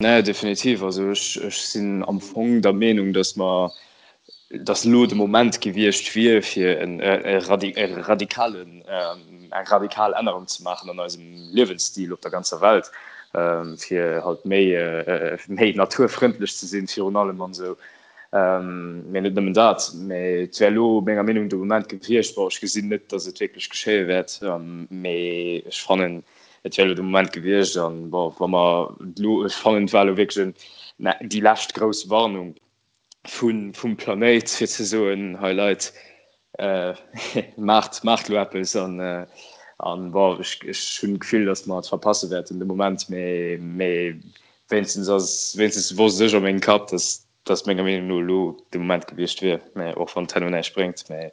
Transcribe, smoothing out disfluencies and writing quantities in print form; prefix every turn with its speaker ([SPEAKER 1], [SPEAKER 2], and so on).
[SPEAKER 1] Nee, definitiv. Also ech, ech sinn am Fong der Meenung, dass mer, dass elo de Moment gewiescht wier, fir en, e radi, e radikalen, eng radikal Ännerung ze maachen an eisem Liewensstil op der ganzer Welt, fir halt méi, méi naturfrëndlech ze sinn virun allem an esou. Mee net nëmmen dat, mee et wär elo menger Meenung de Moment gewiescht. Bon, ech gesinn net, dass et wierklech geschéie wäert, mee ech fannen, Et wär elo de Moment gewiescht an, bon, wa mer elo, ech fannen, et war elo wierklech en, déi lescht grouss Warnung vun, vum Planéit, fir ze soen, hei Leit, maacht, maacht elo eppes an, an bon, ech, ech hunn d'Gefill, datt mer et verpasse wäerten de Moment, mee, mee wéinstens ass, wéinstens wosst ech a mengem Kapp, datt, datt menger Meenung no elo de Moment gewiescht wier, mä och wann et herno näischt bréngt, mä.